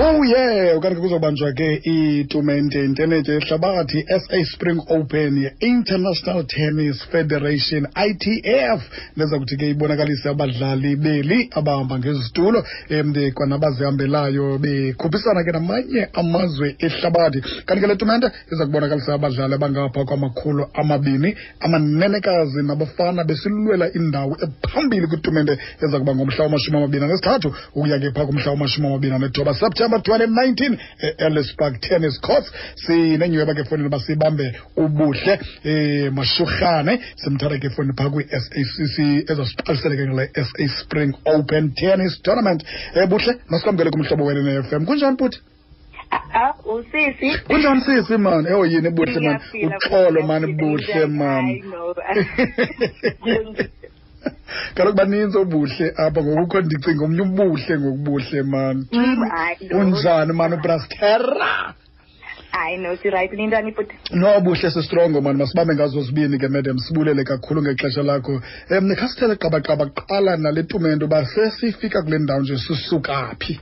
Oh yeah, ukanti ke kuzobanjwa ke itumente intenetya yehlabathi SA Spring Open ye-International Tennis Federation, ITF, neza kuthi ke ibonakalise abadlali beli abahamba ngezitulo kwanabazihambelayo bekhuphisana ke namanye amazwe ehlabathi. Kanti ke le tumente iza kubonakalisa abadlali abangapha kwama-200, amanenekazi nabafana, besilwela indawo ephambili kwitumente eza kuba ngomhla wama-23 ukuya ke phaa kumhla wama-29 September 2019 e-Ellis Park Tennis Courts. Sinenyhweba ke efowunini uba sibambe uBuhle Mashurhane, simthatha ke efowunini phaa kwi-SACC ezasiqalisele ke ngale SA Spring Open Tennis Tournament. Buhle, masikwamkele kuMhlobo Wene ne-FM. Kunjani, bhuti? Ah, usisi. Kunjani, sisi, man? Ewo yini, Buhle, man? Ngiyaphila. Uxolo, man. Ngiyaphila. Buhle, man. Hayi, no. Kaloku baninzi oBuhle apha, ngokukho ndicinga omnye uBuhle ngokubuhle, man. Hayi, no. Unjani, man, ubrastera? Hayi, no, si-right. Nintani, bhuti? No, Buhle, si-strong, man. Masibambe ngazo zibini ke, madam. Sibulele kakhulu ngexesha lakho. Khasithele qabaqaba kuqala nale tumente, uba sesifika kule ndawo nje sisuka phi.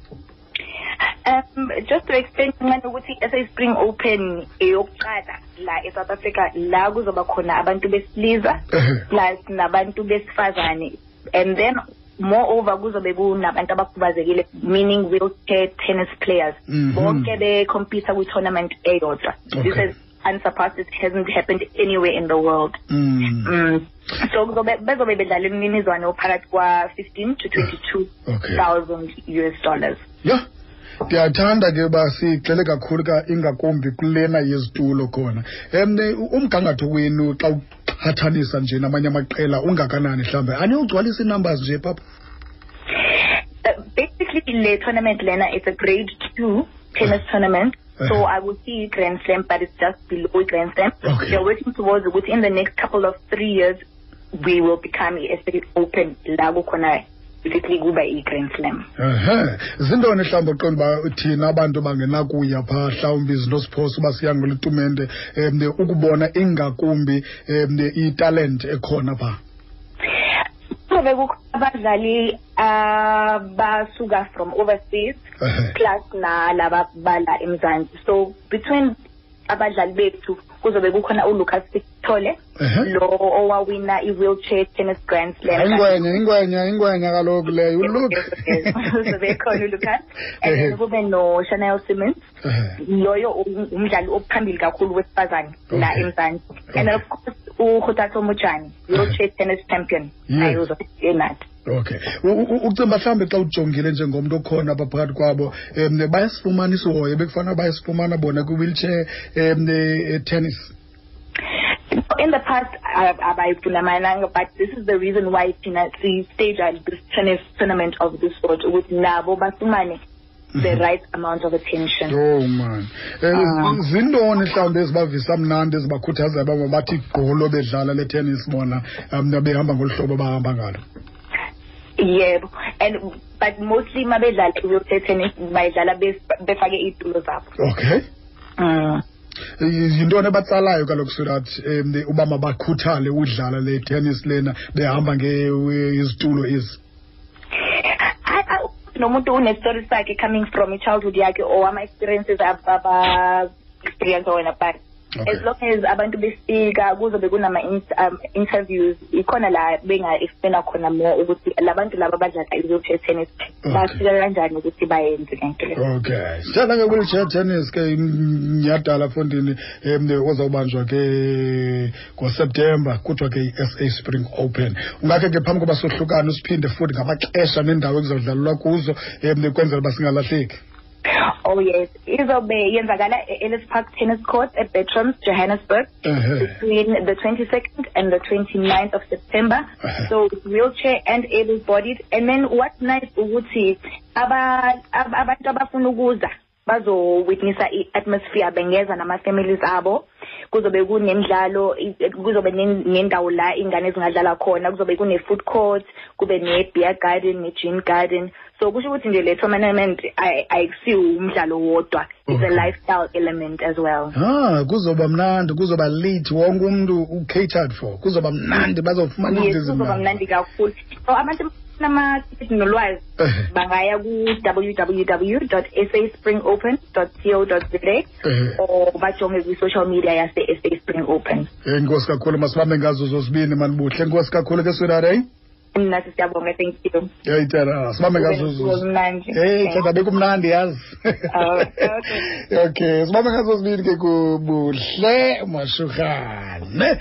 Just to explain kancane ukuthi i-SA Spring Open eyokuqala la e-South Africa la kuzoba khona abantu besilisa plus nabantu besifazane, and then moreover kuzobe kunabantu abakhubazekile, meaning wheelchair tennis players, bonke be-compete kwi-tournament eyodwa. This is unsurpassed. It hasn't happened anywhere in the world. So kuzobe bezobe bedlala imininizwane ophakathi kwa-15 to 22 thousand US dollars. Ya, ndiyathanda ke uba sigxile kakhulu ka ingakumbi kulena yezitulo khona. Umgangatho wenu xa uqhathanisa nje namanye amaqela ungakanani mhlawumbe? Aniyogcwalisa ii-numbers nje, papa? Basically le tournament lena, it's a grade 2 tennis tournament. So I will see Grand Slam, but it's just below Grand Slam. We are working towards ukuthi in the next couple of 3 years we will become i-SA Open la kukhona basically kuba i-Grand Slam. Ehe, zintoni mhlawumbi uqonda uba thina abantu bangenakuya phaa, mhlawumbi izinto siphosa uba siya ngole tumente, ukubona ingakumbi italent ekhona phaa? Kuzobe kukho abadlali abasuka from overseas plus nalaba bala eMzansi. So between abadlali bethu kuzobe kukhona uLucas Sithole, lo owawina i-wheelchair tennis Grand Slam. Ingwenya, ingwenya, ingwenya kaloku leyo, uLuke. Uzobe khona uLucas, and then kube no Chanel Simmons, loyo umdlali ophambili kakhulu wesifazane la eMzansi, and of course uKgothatso Mojane, wheelchair tennis champion, naye uzobe enathi. Okay. Ucimba mhlawumbi xa ujongile njengomntu okhona apha phakathi kwabo, bayasifumana isihoyo bekufanele bayasifumana bona kwi-wheelchair tennis? In the past, abayifunamananga, but this is the reason why thina si-stage this tennis tournament of this sort, ukuthi nabo bafumane the right amount of attention. Oh man. Zintoni mhlawumbi ezibavisa mnandi, ezibakhuthazayo uba mabathi gqolo bedlala le tennis bona, behamba ngolu hlobo bahamba ngalo? Yebo, and but mostly mabedlala i-wheelchair tennis bayidlala befake iy'tulo zabo. Yintoni ebatsalayo kaloku so that uba mabakhuthale udlala le tennis lena behamba ngezitulo ezi? Nomuntu une-story sakhe coming from i-childhood yakhe or ama-experiences aba-experience wena, but as long as abantu befika kuzobe kunama interviews, ikhona la benga-explaina khona more ukuthi labantu laba abadlala i-wheelchair tennis bafika kanjani ukuthi bayenze lento le. Okay. Sithanda nge-wheelchair tennis ke mnyhadala mfondini, ozawubanjwa ke ngoSeptemba, kuthiwa ke i-SA Spring Open. Ungakhe ke phambi koba sohlukane usiphinde futhi ngamaxesha nendawo ekuzawudlalelwa kuzo, kwenzela uba singalahleki. Oh yes, izobe yenzakala e-Ellis Park Tennis Court at Bertrams, Johannesburg, between the 22nd and the 29th of September. So it's wheelchair and able-bodied. And then what's nice ukuthi abantu abafuna ukuza bazo-witnessa i-atmosphere bengeza nama-families abo. Kuzobe kunemidlalo, kuzobe nendawo la ingane ezingadlala khona, kuzobe kune-food court, kube ne-beer garden, ne-gin garden. So kusho ukuthi nje le tournament ayikusiwo umdlalo wodwa, it's a lifestyle element as well. Kuzoba mnandi, kuzoba lit, wonke umuntu u-catered for. Kuzoba mnandi, bazofumana Yes, izinto kuzoba ezimnandi. mnandi kakhulu. So abantu Abafuna amatikiti nolwazi bangaya ku-www saspringopen co za or bajonge kwi-social media yase-SA Spring Open. Enkosi kakhulu, masibambe ngazo zozibini manibuhle. Enkosi kakhulu ke sweetheart, eh? Mna siyabonga, thank you. Hey tata, sibambe ngazo. Kumnandi. Hey tata, bekumnandi yazi. Oh, okay. Okay, sibambe ngazo zibini ke kubuhle Mashuhane.